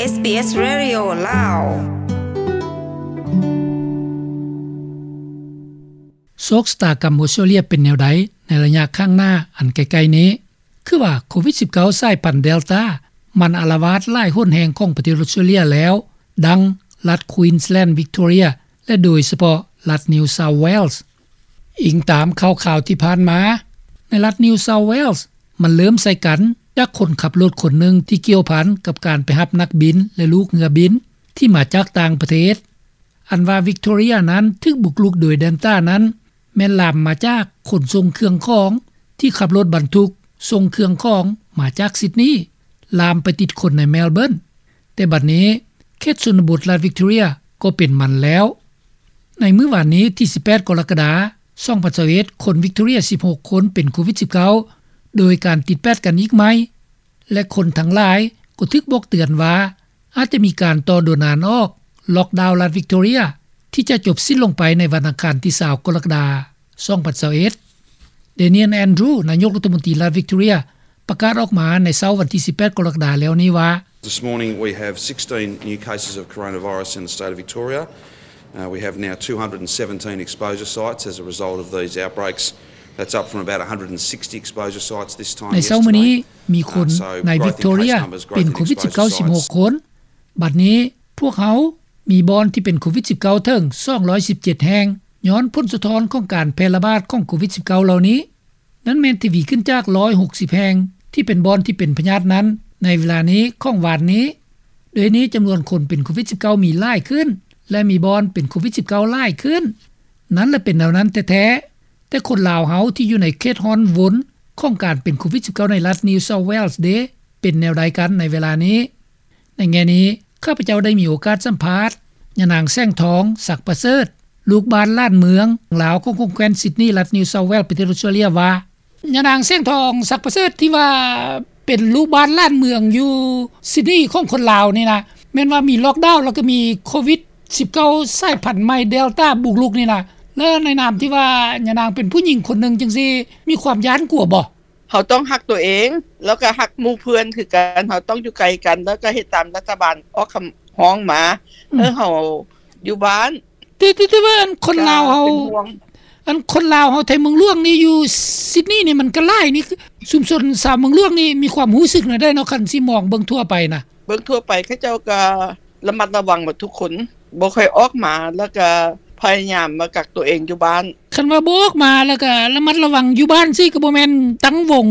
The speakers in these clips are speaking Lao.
ເອສບີເອສ Radio ລາວ. ໂຊກຊະຕາກຳອົດສະຕຣາເລຍເປັນແນວໃດໃນໄລຍະຂ້າງໜ້າອັນໃກ້ໆນີ້? ຄືວ່າໂຄວິດສິບເກົ້າ ສາຍພັນເດລຕາ ມັນອາລະວາດຫຼາຍຫົນແຫ່ງຂອງປະເທດອົດສະຕຣາເລຍແລ້ວ ດັ່ງລັດ Queensland, Victoria ແລະ ໂດຍສະເພາະລັດ New South Wales. ອີງຕາມຂ່າວໆທີ່ຜ່ານມາ, ໃນລັດ New South Wales ມັນເລີ່ມໃສ່ກັນຈາກຄົນຂັບລົດຄົນໜຶ່ງທີ່ກ່ຽວພັນກັບການໄປຮັບນັກບິນ ແລະ ລູກເຮືອບິນທີ່ມາຈາກຕ່າງປະເທດ. ອັນວ່າ Victoria ນັ້ນຖືກບຸກລຸກໂດຍເດລຕານັ້ນ ແມ່ນລາມມາຈາກຄົນສົ່ງເຄື່ອງຂອງທີ່ຂັບລົດບັນທຸກສົ່ງເຄື່ອງຂອງມາຈາກຊິດນີ ລາມໄປຕິດຄົນໃນແມລເບີນ. ແຕ່ບັດນີ້ເຂດຊົນນະບົດລັດ Victoria ກໍເປັນມັນແລ້ວ. ໃນມື້ວານນີ້ທີສິບແປດກໍລະກະດາ ສອງພັນຊາວເອັດ ຄົນ Victoria ສິບຫົກຄົນເປັນໂຄວິດສິບເກົ້າ ໂດຍການຕິດແປດກັນອີກໃໝ່ ແລະ ຄົນທັງຫຼາຍກໍຖືກບອກເຕືອນວ່າ ອາດຈະມີການຕໍ່ໂດນອານອອກ ລ໊ອກດາວລັດ Victoria ທີ່ຈະຈົບສິ້ນລົງໄປໃນວັນອັງຄານທີຊາວກໍລະກະດາ ສອງພັນຊາວເອັດ. Daniel Andrews ນາຍົກລັດຖະມົນຕີລັດ Victoria ປະກາດອອກມາໃນເຊົ້າວັນທີສິບແປດກໍລະກະດາແລ້ວນີ້ວ່າ This morning we have sixteen new cases of coronavirus in the state of Victoria. Uh, we have now two hundred and seventeen exposure sites as a result of these outbreaks. That's up from about one hundred and sixty exposure sites this time ໃນເຊົ້າມື້ນີ້ ມີຄົນໃນ Victoria ເປັນໂຄວິດສິບເກົ້າສິບຫົກຄົນ. ບັດນີ້ພວກເຮົາມີບ່ອນທີ່ເປັນໂຄວິດສິບເກົ້າເຖິງສອງຮ້ອຍສິບເຈັດແຫ່ງ ຍ້ອນຜົນສະທ້ອນຂອງການແຜ່ລະບາດຂອງໂຄວິດສິບເກົ້າເຫຼົ່ານີ້. ນັ້ນແມ່ນທະວີຂຶ້ນຈາກຮ້ອຍຫົກສິບແຫ່ງທີ່ເປັນບ່ອນທີ່ເປັນພະຍາດນັ້ນໃນເວລານີ້ຂອງວານນີ້. ໂດຍນີ້ຈຳນວນຄົນເປັນໂຄວິດສິບເກົ້າມີຫຼາຍຂຶ້ນ ແລະ ມີບ່ອນເປັນໂຄວິດສິບເກົ້າຫຼາຍຂຶ້ນ. ນັ້ນລະເປັນແນວນັ້ນແທ້ໆ. ແຕ່ຄົນລາວເຮົາທີ່ຢູ່ໃນເຂດຮ້ອນວົນຂອງການເປັນໂຄວິດສິບເກົ້າໃນລັດ New South Wales ເດ ເປັນແນວໃດກັນໃນເວລານີ້? ໃນແງ່ນີ້ ຂ້າພະເຈົ້າໄດ້ມີໂອກາດສຳພາດຍານາງ ແສງທອງ ສັກປະເສີດ ລູກບ້ານລ້ານເມືອງລາວຂອງແຂວງຊິດນີ ລັດ New South Wales ປະເທດອົດສະຕຣາເລຍວ່າ ຍານາງ ແສງທອງ ສັກປະເສີດ ທີ່ວ່າເປັນລູກບ້ານລ້ານເມືອງຢູ່ຊິດນີຂອງຄົນລາວນີ້ນະ ແມ່ນວ່າມີລ໊ອກດາວ ແລ້ວກໍມີໂຄວິດສິບເກົ້າສາຍພັນໃໝ່ເດລຕາບຸກລຸກນີ້ນະ ແລ້ວໃນນາມທີ່ວ່າຍານາງເປັນຜູ້ຍິງຄົນໜຶ່ງຈັ່ງຊີ້ ມີຄວາມຢ້ານກົວບໍ່? ເຮົາຕ້ອງຮັກຕົວເອງ ແລ້ວກໍຮັກໝູ່ເພື່ອນຄືກັນ. ເຮົາຕ້ອງຢູ່ໄກກັນ ແລ້ວກໍເຮັດຕາມລັດຖະບານອອກຄຳຮ້ອງມາ ອືມ ໃຫ້ເຮົາຢູ່ບ້ານ. ແຕ່ ແຕ່ ແຕ່ວ່າອັນຄົນລາວເຮົາ ເປັນຫ່ວງ ອັນຄົນລາວເຮົາໄທເມືອງຫຼວງນີ້ ຢູ່ຊິດນີນີ້ມັນກໍຫຼາຍນີ້ ຊຸມຊົນຊາວເມືອງຫຼວງນີ້ມີຄວາມຮູ້ສຶກແນວໃດເນາະ ຄັນຊິມອງເບິ່ງທົ່ວໄປນະ? ເບິ່ງທົ່ວໄປເຂົາເຈົ້າກໍລະມັດລະວັງໝົດທຸກຄົນ ບໍ່ຄ່ອຍອອກມາ ແລ້ວກໍພະຍາຍາມມາກັກຕົວເອງຢູ່ບ້ານ. ຄັນວ່າບໍ່ອອກມາ ແລ້ວກໍລະມັດລະວັງຢູ່ບ້ານຊີ້ ກໍບໍ່ແມ່ນຕັ້ງວົງ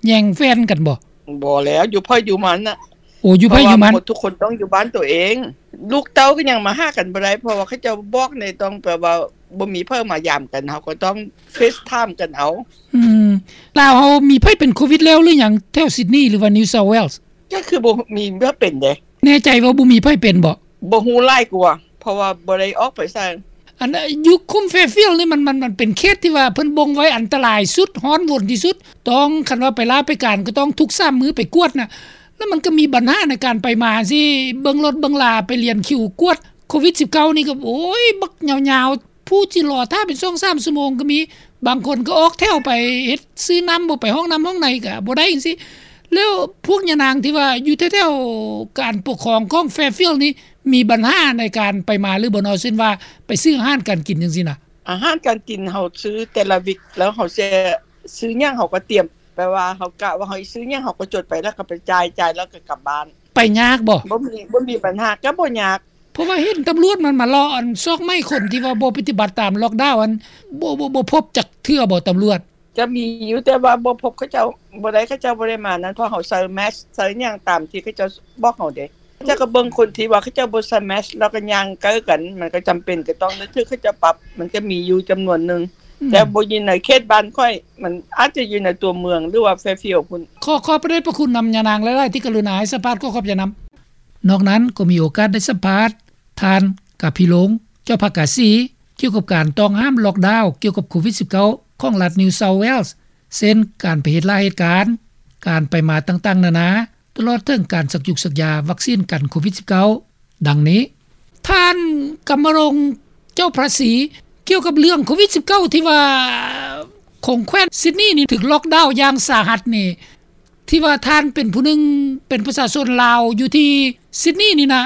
ແຍ່ງແຟນກັນບໍ່? ບໍ່ແລ້ວ ຢູ່ໃຜຢູ່ມັນນະ. ໂອ້ ຢູ່ໃຜຢູ່ມັນ ເພາະວ່າໝົດທຸກຄົນຕ້ອງຢູ່ບ້ານຕົວເອງ. ລູກເຕົ້າກໍຍັງມາຫາກັນບໍ່ໄດ້ ເພາະວ່າເຂົາເຈົ້າບອກໃນ ຕ້ອງແບບວ່າບໍ່ມີໃຜມາຢາມກັນ ເຮົາກໍຕ້ອງເຟສທາມກັນເອົາ. ອືມ ລາວເຮົາມີໃຜເປັນໂຄວິດແລ້ວຫຼືຍັງ ແຖວຊິດນີ ຫຼືວ່າ New South Wales? ກໍຄືບໍ່ມີໃຜເປັນເດ້. ແນ່ໃຈວ່າບໍ່ມີໃຜເປັນບໍ່? ບໍ່ຮູ້ຫຼາຍກວ່າ ເພາະວ່າບໍ່ໄດ້ອອກໄປໃສ. ອັນຢູ່ຂຸມ Fairfield ນີ້ ມັນ ມັນ ມັນເປັນເຂດທີ່ວ່າເພິ່ນບົ່ງໄວ້ອັນຕະລາຍສຸດ ຮ້ອນວົນທີ່ສຸດ ຕ້ອງ ຄັນວ່າໄປລາໄປການກໍຕ້ອງທຸກສາມມື້ໄປກວດນະ. ແລ້ວມັນກໍມີບັນຫາໃນການໄປມາຊີ້ ເບິ່ງລົດເບິ່ງລາ ໄປລຽນຄິວກວດໂຄວິດສິບເກົ້ານີ້ກໍ ໂອ້ຍ ບັກຍາວໆ ຜູ້ຊິລໍຖ້າເປັນສອງສາມຊົ່ວໂມງກໍມີ. ບາງຄົນກໍອອກແຖວໄປເຮັດ ຊື້ນ້ຳ ບໍ່ໄປຫ້ອງນ້ຳຫ້ອງໃນກໍບໍ່ໄດ້ຈັ່ງຊີ້. ແລ້ວພວກຍານາງທີ່ວ່າຢູ່ແຖວໆການປົກຄອງຂອງ Fairfield ນີ້ ມີບັນຫາໃນການໄປມາຫຼືບໍ່ເນາະ? ເຊັ່ນວ່າໄປຊື້ອາຫານການກິນຈັ່ງຊີ້ນະ. ອາຫານການກິນເຮົາຊື້ແຕ່ລະວິກ ແລ້ວເຮົາຊິຊື້ຫຍັງເຮົາກໍຕຽມ ແປວ່າເຮົາກະວ່າເຮົາຊິຊື້ຫຍັງ ເຮົາກໍຈົດໄປ ແລ້ວກໍໄປຈ່າຍ ຈ່າຍແລ້ວກໍກັບບ້ານ. ໄປຍາກບໍ່? ບໍ່ມີ ບໍ່ມີບັນຫາ ກໍບໍ່ຍາກ. ເພາະວ່າເຫັນຕຳຫຼວດມັນມາເລາະອັນຊອກໄໝ້ຄົນທີ່ວ່າບໍ່ປະຕິບັດຕາມລ໊ອກດາວ ອັນ ບໍ່ ບໍ່ ບໍ່ພົບຈັກເທື່ອບໍ່ຕຳຫຼວດ? ກໍມີຢູ່ ແຕ່ວ່າບໍ່ພົບເຂົາເຈົ້າ ບໍ່ໄດ້ ເຂົາເຈົ້າບໍ່ໄດ້ມານັ້ນ ເພາະເຮົາໃສ່ແມັສ ໃສ່ຫຍັງຕາມທີ່ເຂົາເຈົ້າບອກເຮົາເດ້. ເຈົ້າກໍເບິ່ງຄົນທີ່ວ່າເຂົາເຈົ້າບໍ່ໃສ່ແມັສ ແລ້ວກໍຍ່າງໃກ້ກັນ ມັນກໍຈຳເປັນກໍຕ້ອງໄດ້ຖືກເຂົາເຈົ້າປັບ. ມັນກໍມີຢູ່ຈຳນວນໜຶ່ງ ອືມ ແຕ່ບໍ່ຢູ່ໃນເຂດບ້ານຂ້ອຍ ມັນອາດຈະຢູ່ໃນຕົວເມືອງ ຫຼືວ່າ Fairfield ພຸ້ນ. ຂໍຂອບພະເດດພະຄຸນນຳຍານາງຫຼາຍໆ ທີ່ກະລຸນາໃຫ້ສຳພາດ ຂໍຂອບໃຈນຳ. ນອກນັ້ນກໍມີໂອກາດໄດ້ສຳພາດທ່ານ ກາພິລົງ ເຈົ້າພາກາສີ ກ່ຽວກັບການຕ້ອງຫ້າມລ໊ອກດາວ ກ່ຽວກັບໂຄວິດສິບເກົ້າ ຂອງລັດ New South Wales ເຊັ່ນ ການໄປເຮັດລາເຮັດການ, ການໄປມາຕ່າງໆນານາ, ຕະຫຼອດເຖິງການສັກຢູກສັກຢາວັກຊີນກັນໂຄວິດສິບເກົ້າ ດັ່ງນີ້. ທ່ານ ກຳມະລົງ ເຈົ້າພາສີ ກ່ຽວກັບເລື່ອງໂຄວິດສິບເກົ້າ ທີ່ວ່າຂອງແຂວງຊິດນີນີ້ຖືກລ໊ອກດາວຢ່າງສາຫັດນີ້ ທີ່ວ່າທ່ານເປັນຜູ້ໜຶ່ງ ເປັນປະຊາຊົນລາວຢູ່ທີ່ຊິດນີນີ້ນະ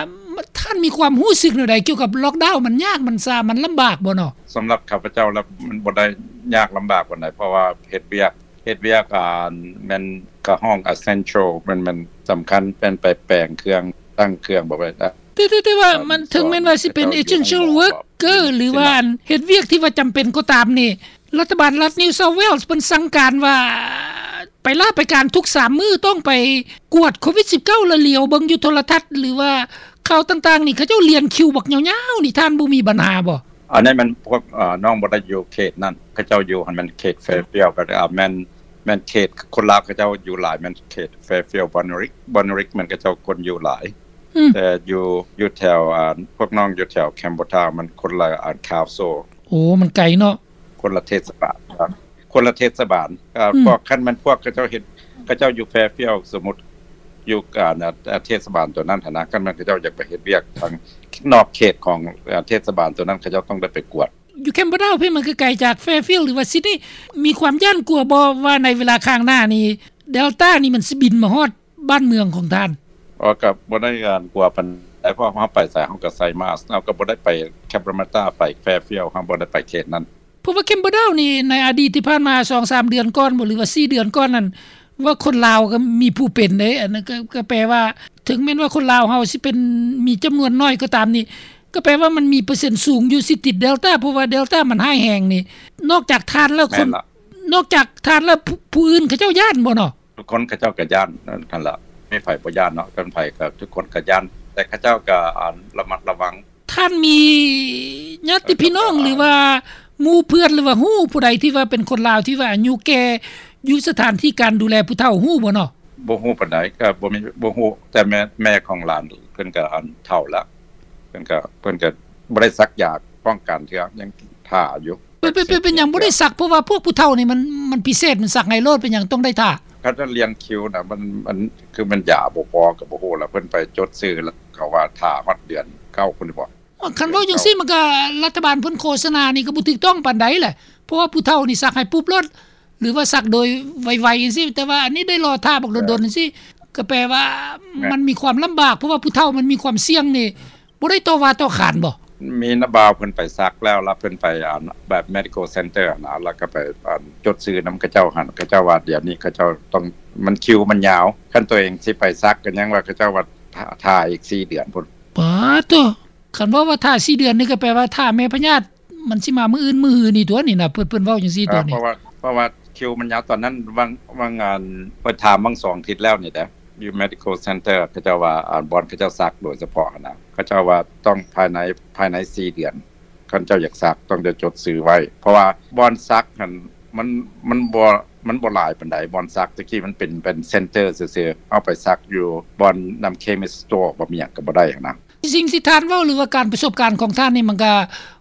ທ່ານມີຄວາມຮູ້ສຶກແນວໃດກ່ຽວກັບລ໊ອກດາວ? ມັນຍາກ ມັນຊາ ມັນລຳບາກບໍ່ເນາະ? ສຳລັບຂ້າພະເຈົ້າແລ້ວ ມັນບໍ່ໄດ້ຍາກລຳບາກປານໃດ ເພາະວ່າເຮັດວຽກ ເຮັດວຽກ ອ່າ ແມ່ນກະຫ້ອງ essential ແມ່ນ ແມ່ນສຳຄັນ ແມ່ນໄປແປງເຄື່ອງ ຕັ້ງເຄື່ອງ ແບບວ່າ ແຕ່ ແຕ່ ແຕ່ວ່າມັນ ເຖິງແມ່ນວ່າຊິເປັນ essential worker ຫຼືວ່າອັນເຮັດວຽກທີ່ວ່າຈຳເປັນກໍຕາມນີ້ ລັດຖະບານລັດ New South Wales ເພິ່ນສັ່ງການວ່າ ໄປລາໄປການທຸກສາມມື້ ຕ້ອງໄປກວດໂຄວິດສິບເກົ້າ ແລະ ຫຼຽວເບິ່ງຢູ່ໂທລະທັດ ຫຼືວ່າຂ່າວຕ່າງໆນີ້ ເຂົາເຈົ້າລຽນຄິວບັກຍາວໆນີ້ ທ່ານບໍ່ມີບັນຫາບໍ່? ອັນນີ້ມັນພວກ ເອີ ນ້ອງບໍ່ໄດ້ຢູ່ເຂດນັ້ນ ເຂົາເຈົ້າຢູ່ຫັ້ນແມ່ນເຂດ Fairfield ກໍ ເອີ ແມ່ນ ແມ່ນເຂດຄົນລາວເຂົາເຈົ້າຢູ່ຫຼາຍ ແມ່ນເຂດ Fairfield Bonnyrigg Bonnyrigg ແມ່ນເຂົາເຈົ້າຄົນຢູ່ຫຼາຍ ອືມ ແຕ່ຢູ່ ຢູ່ແຖວ ອ່າ ພວກນ້ອງຢູ່ແຖວ Campbelltown ມັນຄົນລະ ອ່າ council ໂອ້ ມັນໄກເນາະ ຄົນລະເທດສະບານ ຄົນລະເທດສະບານ ເອີ ອືມ ພວກ ຄັນແມ່ນພວກເຂົາເຈົ້າເຮັດ ເຂົາເຈົ້າຢູ່ Fairfield ສົມມຸດຢູ່ ອ່າ ເທດສະບານຕົວນັ້ນຫັ້ນນະ ຄັນແມ່ນເຂົາເຈົ້າຢາກໄປເຮັດວຽກທາງນອກເຂດຂອງ ເອີ ເທດສະບານຕົວນັ້ນ ເຂົາເຈົ້າຕ້ອງໄດ້ໄປກວດ. ຢູ່ Campbelltown ພີ້ມັນກໍໄກຈາກ Fairfield ຫຼືວ່າ Sydney ມີຄວາມຢ້ານກົວບໍ່ວ່າໃນເວລາຂ້າງໜ້ານີ້ Delta ນີ້ມັນຊິບິນມາຮອດບ້ານເມືອງຂອງທ່ານ? ອໍ ກໍບໍ່ໄດ້ຢ້ານກົວປານໃດ ເພາະເຮົາໄປໃສເຮົາກໍໃສ່ມາສ ເຮົາກໍບໍ່ໄດ້ໄປ Cabramatta ໄປ Fairfield ເຮົາບໍ່ໄດ້ໄປເຂດນັ້ນ. ເພາະວ່າ Campbelltown ນີ້ໃນອະດີດທີ່ຜ່ານມາສອງສາມເດືອນກ່ອນບໍ່ ຫຼືວ່າສີ່ເດືອນກ່ອນນັ້ນ ວ່າຄົນລາວກໍມີຜູ້ເປັນເດ້ ອັນນັ້ນກໍ ກໍແປວ່າ ເຖິງແມ່ນວ່າຄົນລາວເຮົາຊິເປັນ ມີຈຳນວນໜ້ອຍກໍຕາມນີ້ ກໍແປວ່າມັນມີເປີເຊັນສູງຢູ່ ຊິຕິດ Delta ເພາະວ່າ Delta ມັນຮ້າຍແຮງນີ້ ນອກຈາກທ່ານແລ້ວ ຄົນ ນອກຈາກທ່ານແລ້ວ ຜູ້ ຜູ້ອື່ນເຂົາເຈົ້າຢ້ານບໍ່ເນາະ? ທຸກຄົນເຂົາເຈົ້າກໍຢ້ານ ນັ້ນລະ ມີໃຜບໍ່ຢ້ານເນາະ ຄັນໃຜກໍ ທຸກຄົນກໍຢ້ານ ແຕ່ເຂົາເຈົ້າກໍ ອ່າ ລະມັດລະວັງ. ທ່ານມີຍາດຕິພີ່ນ້ອງ ຫຼືວ່າໝູ່ເພື່ອນ ຫຼືວ່າຮູ້ຜູ້ໃດທີ່ວ່າເປັນຄົນລາວທີ່ວ່າອາຍຸແກ່ ຢູ່ສະຖານທີ່ການດູແລຜູ້ເຖົ້າ ຮູ້ບໍ່ເນາະ? ບໍ່ຮູ້ປານໃດ ກໍບໍ່ມີ ບໍ່ຮູ້ ແຕ່ແມ່ ແມ່ຂອງຫຼານເພິ່ນກໍ ອັນ ເຖົ້າແລ້ວ ເພິ່ນກໍ ເພິ່ນກໍບໍ່ໄດ້ສັກຢາປ້ອງກັນເທື່ອ ຍັງຖ້າຢູ່. ເປັນ ເປັນ ເປັນ ເປັນຫຍັງບໍ່ໄດ້ສັກ? ເພາະວ່າພວກຜູ້ເຖົ້ານີ້ມັນ ມັນພິເສດ ມັນສັກໃຫ້ໂລດ ເປັນຫຍັງຕ້ອງໄດ້ຖ້າ? ເຂົາຈະລຽນຄິວນະ ມັນ ມັນ ຄືແມ່ນຢາບໍ່ພໍກໍບໍ່ຮູ້ລະ ເພິ່ນໄປຈົດຊື່ລະ ເຂົາວ່າຖ້າຮອດເດືອນເກົ້າພຸ້ນບໍ? ຄັນເວົ້າຈັ່ງຊີ້ ມັນກໍລັດຖະບານເພິ່ນໂຄສະນານີ້ກໍບໍ່ຖືກຕ້ອງປານໃດແຫຼະ ເພາະວ່າຜູ້ເຖົ້ານີ້ສັກໃຫ້ປຸບໂລດ ຫຼືວ່າສັກໂດຍໄວໆຈັ່ງຊີ້ ແຕ່ວ່າອັນນີ້ໄດ້ລໍຖ້າບັກດົນໆຈັ່ງຊີ້ ກໍແປວ່າມັນມີຄວາມລຳບາກ ເພາະວ່າຜູ້ເຖົ້າມັນມີຄວາມສ່ຽງນີ້ ບໍ່ໄດ້ຕໍ່ວ່າຕໍ່ຂານບໍ່? ມີນະບ່າວເພິ່ນໄປສັກແລ້ວ ແລ້ວເພິ່ນໄປ ອັນ ແບບ medical center ຫັ້ນນະ ແລ້ວກໍໄປ ອັນ ຈົດຊື່ນຳເຂົາເຈົ້າຫັ້ນ ເຂົາເຈົ້າວ່າດຽວນີ້ເຂົາເຈົ້າຕ້ອງ ມັນ ຄິວມັນຍາວ ຄັນຕົວເອງຊິໄປສັກກໍຍັງວ່າເຂົາເຈົ້າວ່າຖ້າ ຖ້າອີກສີ່ເດືອນພຸ້ນ. ປາໂທ້ ຄັນເວົ້າວ່າຖ້າສີ່ເດືອນນີ້ ກໍແປວ່າຖ້າແມ່ພະຍາດ ມັນຊິມາມື້ອື່ນມື້ຮືນີ້ຕົວະນີ້ນະ ເພິ່ນ ເພິ່ນເວົ້າຈັ່ງຊີ້ຕົວະນີ້ ເພາະວ່າ ເພາະວ່າຄິວມັນຍາວ ຕອນນັ້ນຫວ່າງ ຫວ່າງ ອັນ ຂ້ອຍຖາມຫວ່າງສອງທິດແລ້ວນີ້ເດ້ ຢູ່ medical center ເຂົາເຈົ້າວ່າ ອັນ ບ່ອນເຂົາເຈົ້າສັກໂດຍສະເພາະຫັ້ນນະ ເຂົາເຈົ້າວ່າຕ້ອງພາຍໃນ ພາຍໃນສີ່ເດືອນ ຄັນເຈົ້າຢາກສັກຕ້ອງໄດ້ຈົດຊື່ໄວ້ ເພາະວ່າບ່ອນສັກຫັ້ນ ມັນ ມັນບໍ່ ມັນບໍ່ຫຼາຍປານໃດ ບ່ອນສັກ ແຕ່ກີ້ມັນເປັນ ເປັນ center ຊື່ໆ ເຮົາໄປສັກຢູ່ບ່ອນນຳ chemist store ບໍ່ມີຫຍັງກໍບໍ່ໄດ້ຫັ້ນນະ. ສິ່ງທີ່ທ່ານເວົ້າ ຫຼືວ່າການປະສົບການຂອງທ່ານນີ້ ມັນກະ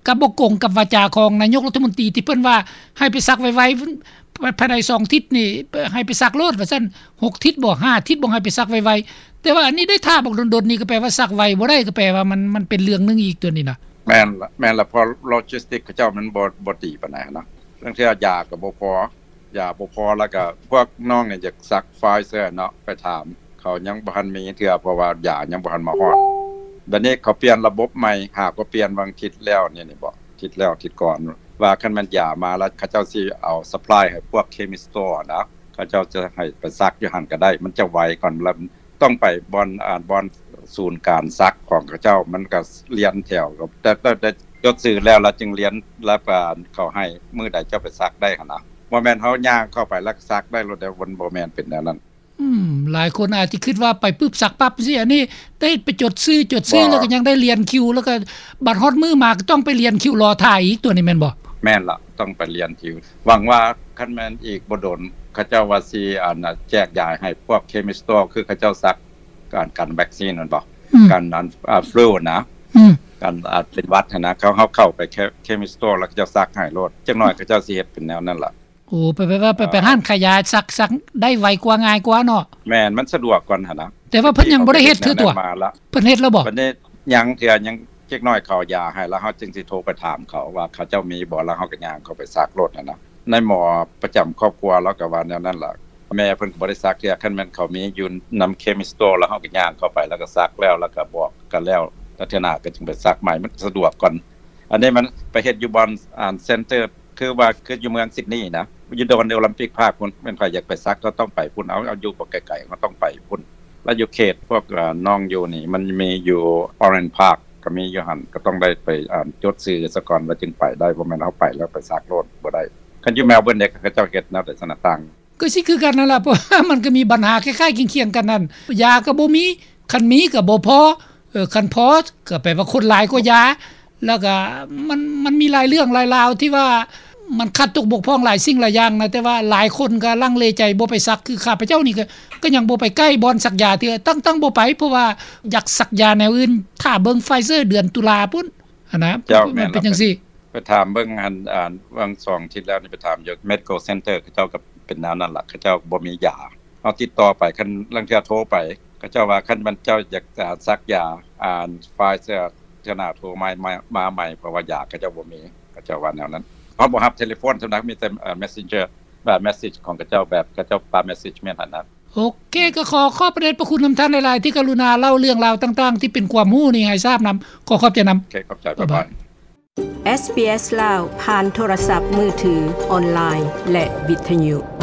ກະບໍ່ກົງກັບວາຈາຂອງນາຍົກລັດຖະມົນຕີ ທີ່ເພິ່ນວ່າໃຫ້ໄປສັກໄວໆ ພາຍໃນສອງທິດນີ້ ໃຫ້ໄປສັກໂລດວ່າຊັ້ນ ຫົກທິດບໍ ຫ້າທິດບໍ ໃຫ້ໄປສັກໄວໆ ແຕ່ວ່າອັນນີ້ໄດ້ຖ້າບັກດົນໆນີ້ ກໍແປວ່າສັກໄວບໍ່ໄດ້ ກໍແປວ່າມັນ ມັນເປັນເລື່ອງໜຶ່ງອີກຕົວນີ້ນະ. ແມ່ນລະ ແມ່ນລະ ເພາະ logistic ເຂົາເຈົ້າມັນບໍ່ ບໍ່ດີປານໃດຫັ້ນນະ ລາງເທື່ອຢາກໍບໍ່ພໍ ຢາບໍ່ພໍ ແລ້ວກໍພວກນ້ອງນີ້ຢາກສັກ Pfizer ເນາະ ໄປຖາມເຂົາຍັງບໍ່ທັນມີເທື່ອ ເພາະວ່າຢາຍັງບໍ່ທັນມາຮອດ ບັດນີ້ເຂົາປ່ຽນລະບົບໃໝ່ ຫາກໍປ່ຽນຫວ່າງທິດແລ້ວນີ້ ນີ້ບໍ ທິດແລ້ວທິດກ່ອນ ວ່າຄັນແມ່ນຢາມາແລ້ວ ເຂົາເຈົ້າຊິເອົາ supply ໃຫ້ພວກ chemist store ນະ ເຂົາເຈົ້າຈະໃຫ້ໄປສັກຢູ່ຫັ້ນກໍໄດ້ ມັນຈະໄວກ່ອນ ແລ້ວຕ້ອງໄປບ່ອນ ອ່າ ບ່ອນສູນການສັກຂອງເຂົາເຈົ້າ ມັນກໍລຽນແຖວ ແຕ່ ແຕ່ ແຕ່ຈົດຊື່ແລ້ວ ແລ້ວຈຶ່ງລຽນ ແລ້ວກໍເຂົາໃຫ້ມື້ໃດເຈົ້າໄປສັກໄດ້ຫັ້ນນະ ບໍ່ແມ່ນເຮົາຍ່າງເຂົ້າໄປແລ້ວສັກໄດ້ໂລດເດ້ ມັນບໍ່ແມ່ນເປັນແນວນັ້ນ. ອືມ ຫຼາຍຄົນອາດຈະຄິດວ່າໄປປຶບສັກປັບຊີ້ ອັນນີ້ໄດ້ໄປຈົດຊື່ ຈົດຊື່ ບໍ່ ແລ້ວກໍຍັງໄດ້ລຽນຄິວ ແລ້ວກໍບັດຮອດມື້ມາກໍຕ້ອງໄປລຽນຄິວລໍຖ້າອີກ ຕົວນີ້ແມ່ນບໍ່? ແມ່ນລະ ຕ້ອງໄປລຽນຄິວ ຫວັງວ່າຄັນແມ່ນອີກບໍ່ດົນ ເຂົາເຈົ້າວ່າຊິ ອັນ ແຈກຢາຍໃຫ້ພວກ chemist store ຄືເຂົາເຈົ້າສັກ ການ ການວັກຊີນແມ່ນບໍ່? ອືມ ການ ອັນ ອ່າ flu ນະ ອືມ ການ ອ່າ ເປັນຫວັດຫັ້ນນະ ເຂົາ ເຮົາເຂົ້າໄປ chemist store ແລ້ວເຂົາເຈົ້າສັກໃຫ້ໂລດ ຈັກໜ້ອຍເຂົາເຈົ້າຊິເຮັດເປັນແນວນັ້ນລະ. ໂອ້ ໄປ ໄປ ໄປ ເອີ ໄປຮ້ານຂາຍຢາສັກ ສັກໄດ້ໄວກວ່າ ງ່າຍກວ່າເນາະ. ແມ່ນ ມັນສະດວກກວ່າຫັ້ນນະ ແຕ່ວ່າເພິ່ນຍັງບໍ່ໄດ້ເຮັດເທື່ອຕົວະ ເພິ່ນເຮັດແລ້ວບໍ່? ບັດນີ້ຍັງເທື່ອ ຍັງ ຈັກໜ້ອຍເຂົາເອົາຢາໃຫ້ ແລ້ວເຮົາຈຶ່ງຊິໂທໄປຖາມເຂົາວ່າເຂົາເຈົ້າມີບໍ່ ແລ້ວເຮົາກໍຍ່າງເຂົ້າໄປສັກໂລດຫັ້ນນະ ນາຍໝໍປະຈຳຄອບຄົວລາວກໍວ່າແນວນັ້ນລະ ແມ່ເພິ່ນກໍບໍ່ໄດ້ສັກເທື່ອ ຄັນແມ່ນເຂົາມີຢູ່ນຳ chemist store ແລ້ວເຮົາກໍຍ່າງເຂົ້າໄປ ແລ້ວກໍສັກແລ້ວ ແລ້ວກໍບອກກັນແລ້ວ ແລ້ວເທື່ອໜ້າກໍຈຶ່ງໄປສັກໃໝ່ ມັນສະດວກກວ່າ. ອັນນີ້ມັນໄປເຮັດຢູ່ບ່ອນ ອ່າ center ຄືວ່າຄືຢູ່ເມືອງ Sydney ນະ ຢູ່ Downtown Olympic Park ພຸ້ນ ແມ່ນໃຜຢາກໄປສັກກໍຕ້ອງໄປພຸ້ນ ເອົາ ເອົາຢູ່ບໍ່ໄກໆ ກໍຕ້ອງໄປພຸ້ນ ແລ້ວຢູ່ເຂດພວກ ອ່າ ນ້ອງຢູ່ນີ້ ມັນມີຢູ່ Orange Park ກໍມີຢູ່ຫັ້ນ ກໍຕ້ອງໄດ້ໄປ ອ່າ ຈົດຊື່ສາກ່ອນ ແລ້ວຈຶ່ງໄປໄດ້ ບໍ່ແມ່ນເຮົາໄປແລ້ວໄປສັກໂລດ ບໍ່ໄດ້. ຄັນຢູ່ Melbourne ເດ ເຂົາເຈົ້າເຮັດແນວໃດຊັ້ນນະ ຕ່າງ? ກໍຊິຄືກັນນັ້ນລະ ເພາະວ່າມັນກໍມີບັນຫາຄ້າຍໆຄຽງໆກັນນັ້ນ ຢາກໍບໍ່ມີ ຄັນມີກໍບໍ່ພໍ ເອີ ຄັນພໍກໍແປວ່າຄົນຫຼາຍກວ່າຢາ ແລ້ວກໍມັນ ມັນມີຫຼາຍເລື່ອງຫຼາຍລາວທີ່ວ່າມັນຂາດຕົກບົກຜ່ອງຫຼາຍສິ່ງຫຼາຍຢ່າງນະ ແຕ່ວ່າຫຼາຍຄົນກໍລັງເລໃຈບໍ່ໄປສັກ ຄືຂ້າພະເຈົ້ານີ້ກໍ ກໍຍັງບໍ່ໄປໃກ້ບ່ອນສັກຢາເທື່ອ ຕັ້ງ ຕັ້ງບໍ່ໄປ ເພາະວ່າຢາກສັກຢາແນວອື່ນ ຖ້າເບິ່ງ Pfizer ເດືອນຕຸລາພຸ້ນຫັ້ນນະ ເຈົ້າ ມັນເປັນຈັ່ງຊີ້. ໄປຖາມເບິ່ງຫັ້ນ ອ່າ ຫວ່າງສອງອາທິດແລ້ວນີ້ ໄປຖາມຢູ່ Medical Center ເຂົາເຈົ້າກໍເປັນແນວນັ້ນລະ ເຂົາເຈົ້າບໍ່ມີຢາ. ເຮົາຕິດຕໍ່ໄປ ຄັນລາງເທື່ອໂທໄປ ເຂົາເຈົ້າວ່າ ຄັນແມ່ນເຈົ້າຢາກ ອ່າ ສັກຢາ ອ່າ Pfizer ເທື່ອໜ້າໂທມາ ມາ ມາໃໝ່ ເພາະວ່າຢາເຂົາເຈົ້າບໍ່ມີ ເຂົາເຈົ້າວ່າແນວນັ້ນ. ເຮົາບໍ່ຮັບເທເລໂຟນສ່ຳນັກ ມີແຕ່ ເອີ Messenger ແບບ message ຂອງເຂົາເຈົ້າ ແບບເຂົາເຈົ້າປາ message ແມ່ນຫັ້ນນະ. ໂອເຄ ກໍຂໍຂອບພະເດດພະຄຸນນຳທ່ານຫຼາຍໆ ທີ່ກະລຸນາເລົ່າເລື່ອງລາວຕ່າງໆ ທີ່ເປັນຄວາມຮູ້ນີ້ໃຫ້ຊາບນຳ. ຂໍຂອບໃຈນຳ. ໂອເຄ ຂອບໃຈ. ບາຍບາຍ. ເອສບີເອສ ລາວ ຜ່ານໂທລະສັບມືຖື, ອອນລາຍ ແລະ ວິທະຍຸ.